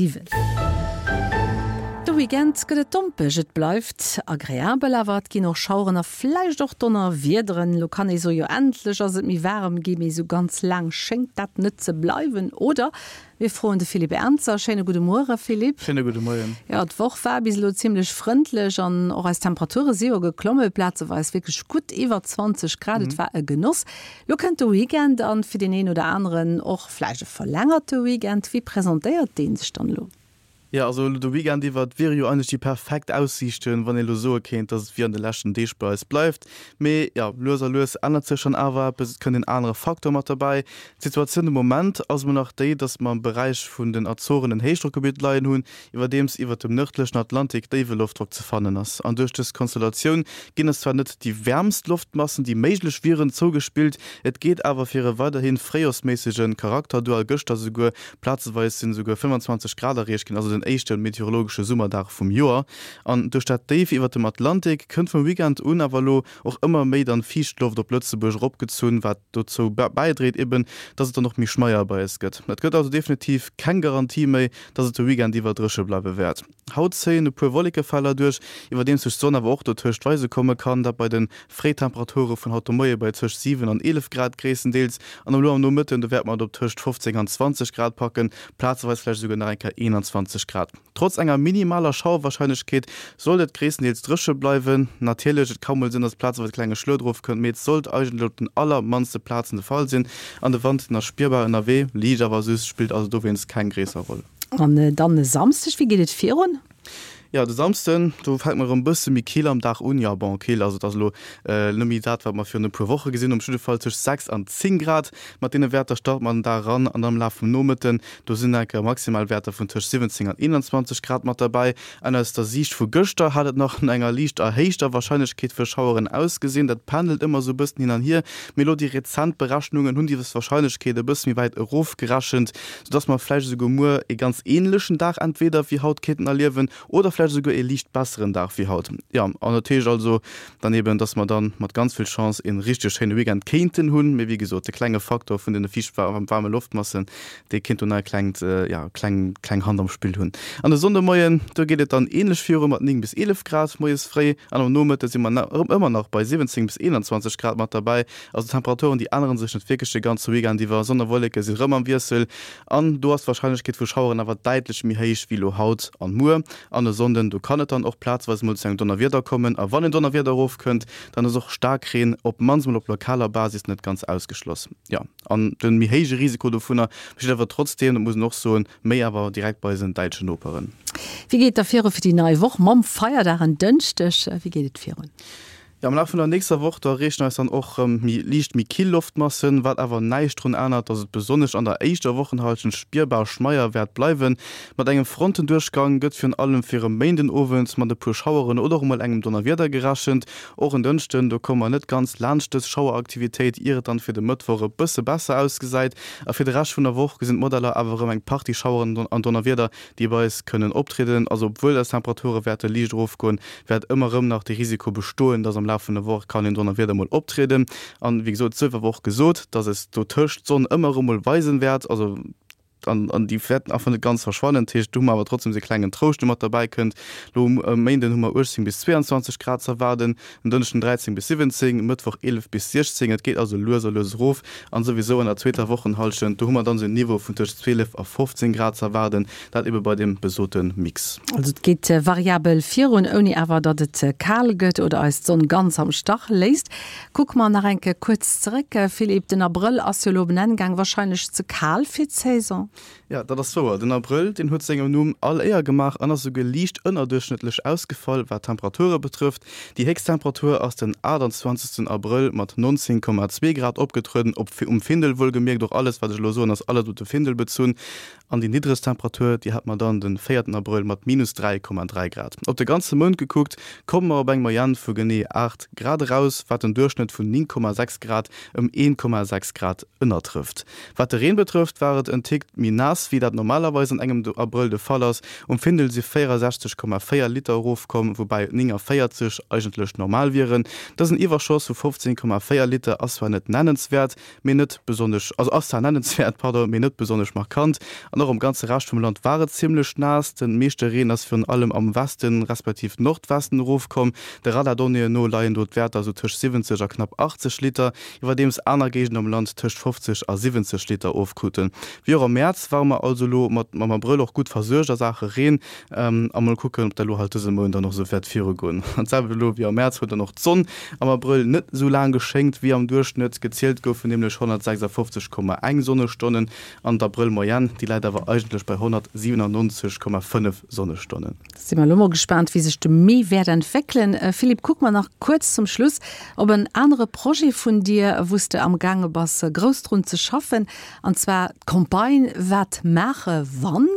7. De Weekend gëtt et dompeg, et bleift agreabel, awer et ginn och Schaueren a vläicht och Donnerwiederen. Elo kann ee soe jo endlech ass et méi waarem gi, mee esou ganz laang schéngt dat net ze bleiwen, oder? Mir froen de Philippe Ernzer. Schéine gudde Muere Philippe. Schéine gudde Moien. Jo, d'Woch war bis elo zimmlech frëndlech an och eis Temperature si jo geklomme, plazeweis wierklech gutt iwwer 20 Grad. Et war e Genoss. Lo kënnt de Weekend an fir deen een oder aneren och vläicht e verlängerte Weekend. Wéi presentéiert dee sech dann elo? Jo, also elo de Weekend iwwer, et wiere jo eigentlech déi perfekt Aussiichten, wann ee elo soe kéint, dass et wéi an de leschten Deeg bei eis bleift. Mee jo, lues a lues ännert sech dann awer eppes, et kënnt en anere Faktor mat derbäi. D'Situatioun de Moment ass emol nach déi, dass mer am Beräich vun den Azoren en Héichdrockgebitt leien hunn, iwwerdeems iwwert dem nërdlechen Atlantik déiwe Loftdrock ze fannen ass. An duerch dës Konstellatioun ginn eis zwar net déi wäermst Loftmassen, déi méiglech wieren, zougespillt, et geet awer fir e weiderhi fréijorsméissege Charakter duer a gëschter souguer plazeweis sinn esouguer 25 Grad erreecht ginn, also den éischte meteorologesche Summerdag vum Joer. An duerch dat Déif iwwert dem Atlantik kënnt vum Weekend un awer elo och ëmmer méi dann Fiichtloft op Lëtzebuerg eropgezunn, wat dozou bäidréit eben, dass et dann och méi schmeier bei eis gëtt. Et gëtt also definitiv keng Garantie méi, dass et de Weekend iwwer dréche bleiwe wäert. Haut zéien e puer Wollekefeller duerch, iwwerdeems sech d'Sonn awer och dotëscht weise komme kann, dat bei de Fréitemperature vun haut de Moie bei tëscht 7 an 11 Grad gréisstendeels. An elo am Nomëtten, do wäerte mer et op tëscht 15 an 20 Grad packen, plazeweis vläicht esouguer nach eng Kéier 21 Grad. Trotz enger minimaler Schauerwarscheinlechkeet sollt et gréisstendeels dréche bleiwen. Natierlech, et ka mol sinn, dass plazeweis e klenge Schluet erofkënnt, mee et sollt eigentlech op den allermannste Plazen de Fall sinn. An de Wand, den ass spierbar ënnerwee, liicht awer süss, spillt also dowéinst keng gréisser Roll. An dann e Samsdeg, wéi geet et virun? Jo, de Samsden, do fänkt mer erëm e bësse méi kill am Dag un. Jo, bon, kill, also et ass elo net méi dat, wat mer virun e puer Woche gesinn hunn. Op jidde Fall tëscht 6 an 10 Grad. Mat deene Wäerter starte mer den Dag eran an am Laf vum Nomëtten, do sinn enker maximal Wäerter vun tëscht 17 an 21 Grad mat derbäi. An aus der Siicht vu gëschter hat et nach no enger liicht erhéichter Warscheinlechkeet fir Schaueren ausgesinn. Dat pendelt ëmmer esou e bëssen hin an hier, mee elo déi rezent Berechnungen hunn déi Warscheinlechkeet e bësse méi wäit erofgerechent. soudass mer vläicht esouguer muer ee ganz änlechen Dag entweder wéi haut kéinten erliewen oder vläicht esouguer ee liicht besseren Dag wéi haut. Jo, an dat heescht also dann eben, dass mer dann mat ganz vill Chance ee richteg schéine Weekend kéinten hunn. Mee wéi gesot, de klenge Faktor vun deene fiicht waarme Loftmassen, dee kéint do nach e klengt, jo, kleng, kleng Hand am Spill hunn. An de Sonndemoien, do geet et dann änlech viru mat 9 bis 11 Grad moies fréi an am Nomëtte si mer ëmmer nach bei 17 bis 21 Grad mat derbäi. Also d'Temperaturen déi änneren sech net wierklech de ganze Weekend iwwer, Sonn a Wolleke si rëm am Wiessel an do ass d'Warscheinlechkeet vu Schaueren awer däitlech méi héich wéi elo haut an muer. An e Sonnden, do kann et dann och plazeweis mol zu engem Donnerwieder kommen a wann en Donnerwieder erofkënnt, dann ass och Staarkreen op mannst mol op lokaler Basis net ganz ausgeschloss. Jo, an de méi héije Risiko dovunner besteet awer trotzdeem, dat muss een och soen, méi awer direkt bei eisen däitschen Noperen. Wéi geet et da viru fir déi nei Woch mam Feierdag en Dënschdeg? Wéi geet et virun? Jo, am Laf vun der nächster Woch, do erreechen eis dann och rëm méi liicht méi kill Loftmassen, wat awer näischt drun ännert, dass et besonnesch an der éischter Wochenhallschent spierbar schmeier wäert bleiwen. Mat engem Frontenduerchgang gëtt virun allem fir e Méindenowend mat e puer Schaueren oder och emol engem Donnerwieder gerechent. Och en Dënschden, do komme mer net ganz laanscht dës Schaueraktivitéit, ier et dann fir de Mëttwoch e bësse besser ausgesäit. A fir de Rescht vun der Woch gesinn d'Modeller awer erëm eng Partie Schaueren an Donnerwieder, déi bei eis kënnen optrieden. Also obwuel eis Temperature wäerte liicht erofgoen, wäert ëmmer erëm nach de Risiko bestoen, dass am Laf vun der Woch kann een Donnerwieder mol optrieden. An wéi gesot, et sief awer och gesot, dass es dotëscht d'Sonn ëmmer erëm mol weisen wäert, also an an déi wäerten einfach net ganz verschwannen. Dat heescht, do hu mer awer trotzdem esou e klengen Trouscht, dee mat derbäi kënnt. Elo um Méinden hu mer 18 bis 22 Grad ze erwaarden, en Dënschden 13 bis 17, Mëttwoch 11 bis 16. Et geet also lues a lues erof an souwisou an der zweeter Wochenhallschent, do hu mer dann esou en Niveau vun tëscht 12 a 15 Grad ze erwaarden. Dat ebe bei deem besote Mix. Also et geet variabel virun, ouni awer datt et kal gëtt oder eis d'Sonn ganz am Stach léisst. Kucke mer nach eng Kéier kuerz zeréck, Philippe, den Abrëll ass jo elo op en Enn gaang, warscheinlech ze kal fir d'Saison? Jo, dat ass wouer. Den Abrëll, deen huet sengem Numm all Éier gemaach an ass esouguer liicht ënnerduerchschnëttlech ausgefall, wat d'Temperature betrëfft. Déi héchst Temperatur ass den 28 Abrëll mat 19,2 Grad opgetrueden, op um Findel wuelgemierkt. Och alles, wat ech elo soen, ass alles op de Findel bezunn. An déi niddregst Temperatur, déi hat mer dann de véierten Abrëll mat minus 3,3 Grad. Op de ganze Mount gekuckt, komme mer op eng Moyenne vu genee 8 Grad eraus, wat den Duerchschnëtt vun 9,6 Grad ëm 1,6 Grad ënnertrëfft. Wat de Reen betrëfft, war et en Tick. méi naass, wéi dat normalerweis an engem Abrëll de Fall ass. Um Findel si 64,4 Liter erofkomm, woubäi 49 eigentlech normal wieren. Dësen Iwwerschoss vu 15,4 Liter ass zwar net nennenswäert, mee net besonnesch, also ass zwar nennenswäert, pardon, mee net besonnesch markant. An och am ganze Rescht vum Land war et zimmlech naass. De meeschte Reen ass virun allem am Westen, respektiv Nordwesten erofkomm. De Radardonnéeën no leien do d'Wäerter esou tëscht 70 a knapp 80 Liter, iwwerdeems aner Géigenden am Land tëscht 50 a 70 Liter ofkruten. Wéi och am Mäerz ware mer also elo mat mam Abrëll och gutt versuergt a Saache Reen. A mol kucken, ob dat elo halt dëse Mount dann och esou wäert virugoen. An d'selwecht elo wéi am Mäerz huet dann och d'Sonn am Abrëll net esou laang geschéngt wéi am Duerchschnëtt. Gezielt goufen nämlech 156,1 Sonnestonnen an d'Abrëll-Moyenne, déi läit awer eigentlech bei 197,5 Sonnestonnen. Da si mer elo mol gespaant, wéi sech de Mee wäert entwéckelen. Philippe, kucke mer nach kuerz zum Schluss op en anere Projet vun dir, wou s de amgaange bass grouss drun ze schaffen, an zwar d'Campagne Wat maache wann?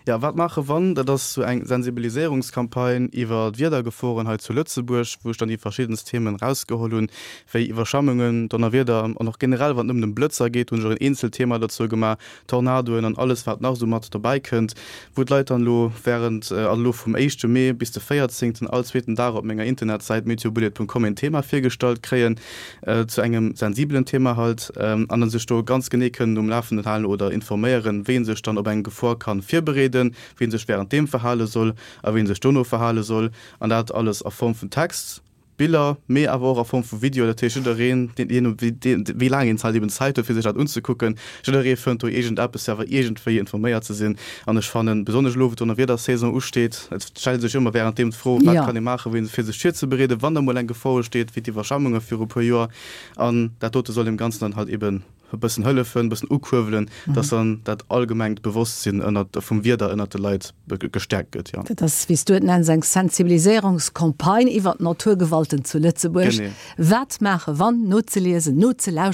Jo, Wat maache wann? Dat ass sou eng Sensibiliséierungscampagne iwwer d'Wiedergeforen hei zu Lëtzebuerg, wou ech dann déi verschiddenst Themen erausgeholl hunn, wéi Iwwerschwemmungen, Donnerwieder an och generell, wann et nëmmen ëm Blëtzer geet, hunn ech och en eenzelt Thema dozou gemaach, Tornadoen an alles wat nach esou mat dobäi kënnt, wou d'Leit dann elo während, also elo vum éischte Mee bis de véierzéngten, all zweeten Dag op menger Internetsäit meteobullet.com een Thema virgestallt kréien zu engem sensibelen Thema halt an dann sech do ganz genee kënnen um Lafenden halen oder informéieren, wéi een sech dann op eng Gefor kann virbereeden, wéi een sech während deem verhale soll a wéi een sech dono verhale soll an dat alles a Form vun Text. Biller, mee awer och a Form vu Video. Dat heescht, jiddereen, deen, jee no wéi laang een halt eben Zäit huet, fir sech dat unzekucken, jidderee fënnt do iergendeppes, fir awer iergendwéi informéiert ze sinn. An ech fannen, besonnesch elo, wou d'Donnerwiedersaison usteet, et stellt sech ëmmer wärenddeem d'Fro, Wat kann ee maachen, wéi fir sech virzebereeden, wann da mol eng Gefor usteet, wéi d'Iwwerschwemmunge viru puer Joer. An dat dote soll deem Ganzen dann halt eben e bëssen hëllefen, e bëssen ukuerbelen, dass dann dat allgemengt Bewosstsinn ënnert, vum Wieder ënnert de Leit gestäerkt gëtt, jo. Dat ass, wéi s du et nenns, eng Sensibiliséierungscampagne iwwert d'Naturgewalten zu Lëtzebuerg. Genee. Wat maache wann? Nozeliesen, nozelauschteren.